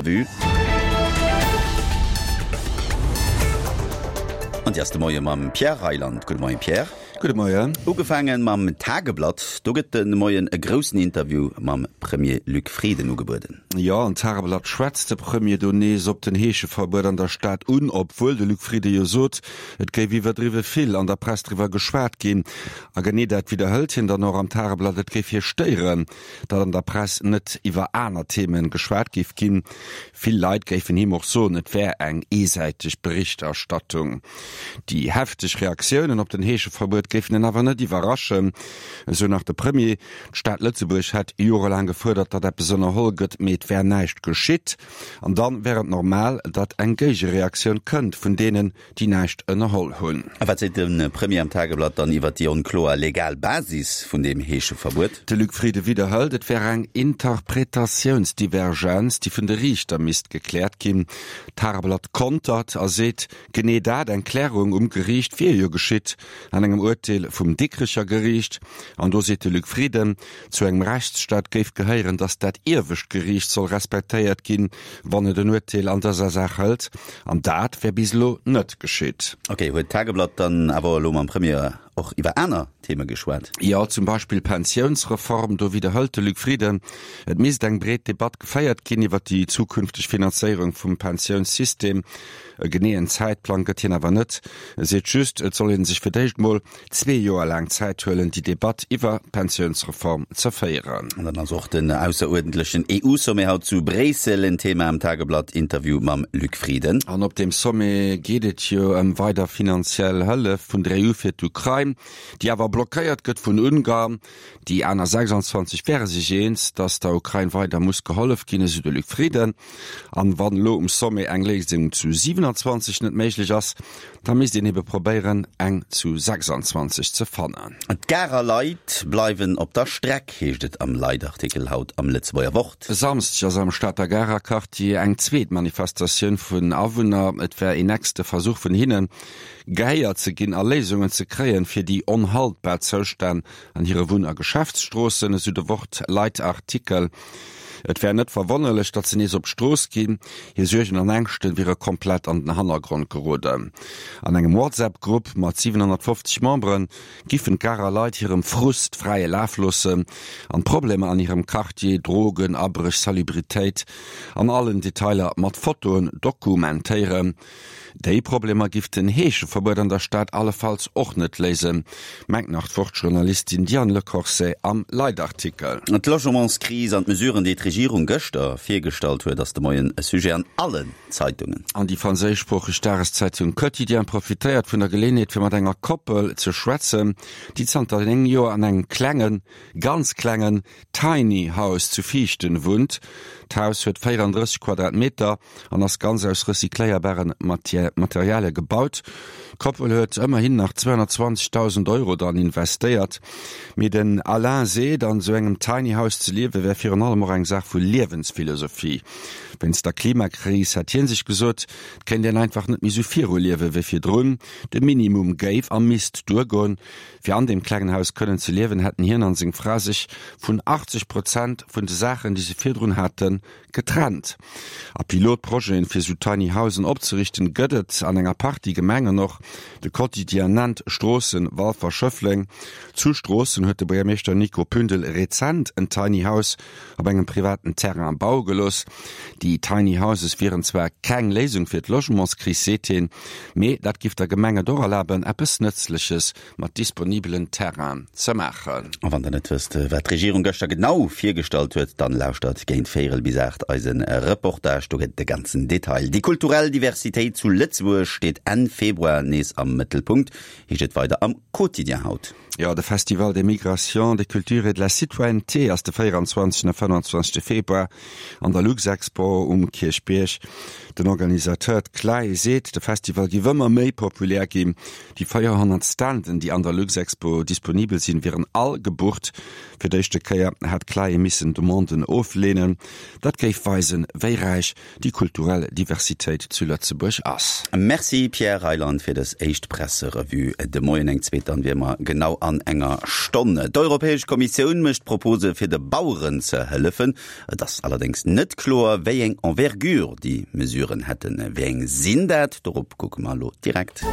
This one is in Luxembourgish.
Presserevue. An déi ass de Moie mam Pierre Reyland. Gudde Moien, Pierre. Gudde Moien. Ugefaange mam Tageblatt. Do gëtt de Moien e groussen Interview mam Premier Luc Frieden ugebueden. Jo, an Tageblatt schwätzt de Premier do nees op den Heescheverbuet an der Stad un, obwuel de Luc Frieden jo sot, et géif iwwerdriwwe vill an der Press driwwer geschwat ginn. A genee dat widderhëlt hien dann och am Tageblatt, et géif hie stéieren, datt an der Press net iwwer aner Themen geschwat géif ginn. Vill Leit géifen him och soen, et wär eng eesäiteg Berichterstattung. Déi hefteg Reaktiounen op den Heescheverbuet géifen en awer net iwwerraschen, esou nach de Premier. D'Stad Lëtzebuerg hätt jorelaang gefuerdert, datt eppes ënnerholl gëtt, mee et wär näischt geschitt. An dann wär et normal, datt eng Géigereaktioun kënnt vun deenen, déi näischt ënnerholl hunn. A wat seet de Premier am Tageblatt dann iwwer déi onkloer legal Basis vun deem Heescheverbuet? De Luc Frieden widderhëlt, et wär eng Interpretatiounsdivergenz, déi vun de Riichter misst gekläert ginn. D'Tageblatt kontert a seet, genee dat, eng Klärung um Geriicht, wier jo geschitt an engem Urteel vum Dikrecher Geriicht. An do seet de Luc Frieden, zu engem Rechtsstaat géif gehéieren, datt dat iewescht Geriicht soll respektéiert ginn, wann et en Urteel an dëser Saach hëlt. An dat wär bis elo net geschitt. Ok, huet d'Tageblatt dann awer elo mam Premier och iwwer aner Theme geschwat? Jo, zum Beispill d'Pensiounsreform. Do widderhëlt de Luc Frieden, et misst eng breet Debatt geféiert ginn iwwer déi zukünfteg Finanzéierung vum Pensiounssystem. E geneeën Zäitplang gëtt hien awer net. E seet just, et soll ee sech fir d'éischt mol zwee Joer laang Zäit huelen, déi Debatt iwwer d'Pensiounsreform ze féieren. An dann ass och den ausseruerdentlechen EU-Sommet haut zu Bréissel en Thema am Tageblatt-Interview mam Luc Frieden. An op deem Sommet geet et jo ëm weider finanziell Hëllef vun der EU fir d'Ukrain, déi awer blockéiert gëtt vun Ungarn. Déi aner 26 wäre sech eens, datt der Ukrain weider muss gehollef ginn, esou de Luc Frieden. An wann elo um Sommet eng Léisung zu 27 net méiglech ass, da misst een ebe probéieren, eng zu 26 ze fannen. D'Garer Leit bleiwen op der Streck, heescht et am Leitartikel haut am Lëtzebuerger Wort. E Samsdeg ass am Stater Garer Quartier eng zweet Manifestatioun vun Awunner. Et wär een nächste Versuch vun hinnen, gehéiert ze ginn a Léisungen ze kréien, fir déi onhaltbar Zoustänn an hire Wunn a Geschäftsstroossen, esou de Wort-Leitartikel. Et wär net verwonnerlech, datt se nees op d'Strooss ginn. Hir Suergen an Ängschte wiere komplett an den Hannergrond geroden. An engem WhatsApp-Grupp mat 750 Membere giffen d'Garer Leit hirem Frust fräie Laf loossen an d'Problemer an hirem Quartier, Drogen, Abréch, Salubritéit, an allen Detailer mat Fotoen dokumentéieren. Déi Problemer giff den Heescheverbuet an der Stad allefalls och net léisen, mengt nach d'Wort-Journalistin Diane Le Corset am Leitartikel. D'Logementskris an d'Mesuren, déi d'Regierung gëschter virgestallt huet, ass de Moien e Sujet an allen Zeitungen. An déi franséischsproocheg Dageszeitung Quotidien profitéiert vun der Geleeënheet, fir mat enger Koppel ze schwätzen, déi zanter 9 Joer an engem klengen, ganz klengen Tiny House zu Viichten wunnt. D'Haus huet 34 Quadratmeter an ass ganz aus recycléierbaren Materialie gebaut. D'Koppel huet ëmmerhin nach 220.000 Euro dran investéiert. Mee den Alain seet, an esou engem Tiny House ze liewe wär virun allem och eng Saach vu Liewensphilosophie. Wéinst der Klimakris hätt hie sech gesot, et kéint een einfach net méi esou viruliewe wéi virdrun. De Minimum géif a misst duergoen. Fir an deem klengen Haus kënnen ze liewen, hätten hien an seng Fra sech vun 80 Prozent vun de Saachen, déi se virdrun haten, getrennt. A Pilotprojeten, fir sou Tiny Housen opzeriichten, gëtt et an enger Partie Gemengen och. De Quotidien nennt Stroossen, Walfer, Schëffleng. Zu Stroossen huet de Buergermeeschter Nico Pündel rezent en Tiny House op engem privaten Terrain baue gelooss. Déi Tiny Houses wieren zwar keng Léisung fir d'Logementskris, seet hien, mee dat giff der Gemeng et och erlaben, eppes Nëtzleches mat disponibelen Terrainen ze maachen. A wann der net wësst, wat d'Regierung gëschter genau virgestallt huet, dann lauschtert géint véierel bis 8 eise Reportage, do gëtt et de ganzen Detail. Déi kulturell Diversitéit zu Lëtzebuerg steet Enn Februar nees am Mëttelpunkt, heescht et weider am Quotidien haut. Jo, de Festival des Migrations, des Cultures et de la Citoyenneté ass de 24 a 25 Februar an der Luxexpo um Kierchbierg. Den Organisateur, d'CLAE, seet, de Festival géif ëmmer méi populär ginn. Déi 400 Standen, déi an der Luxexpo disponibel sinn, wieren all gebucht. Fir d'éischte Kéier hätt d'CLAE missen Demanden ofleenen. Dat géif weisen, wéi räich déi kulturell Diversitéit zu Lëtzebuerg ass. Merci Pierre Reyland fir dës éischt Presserevue de Moien. Eng zweet dann wier mer genau an enger Stonn. D'Europäesch Kommissioun mécht Propose fir de Baueren ze hëllefen. Et ass allerdéngs net kloer, wéi eng Envergure déi Mesuren hätten. Wéi eng sinn dat? Dorop kucke mer elo direkt.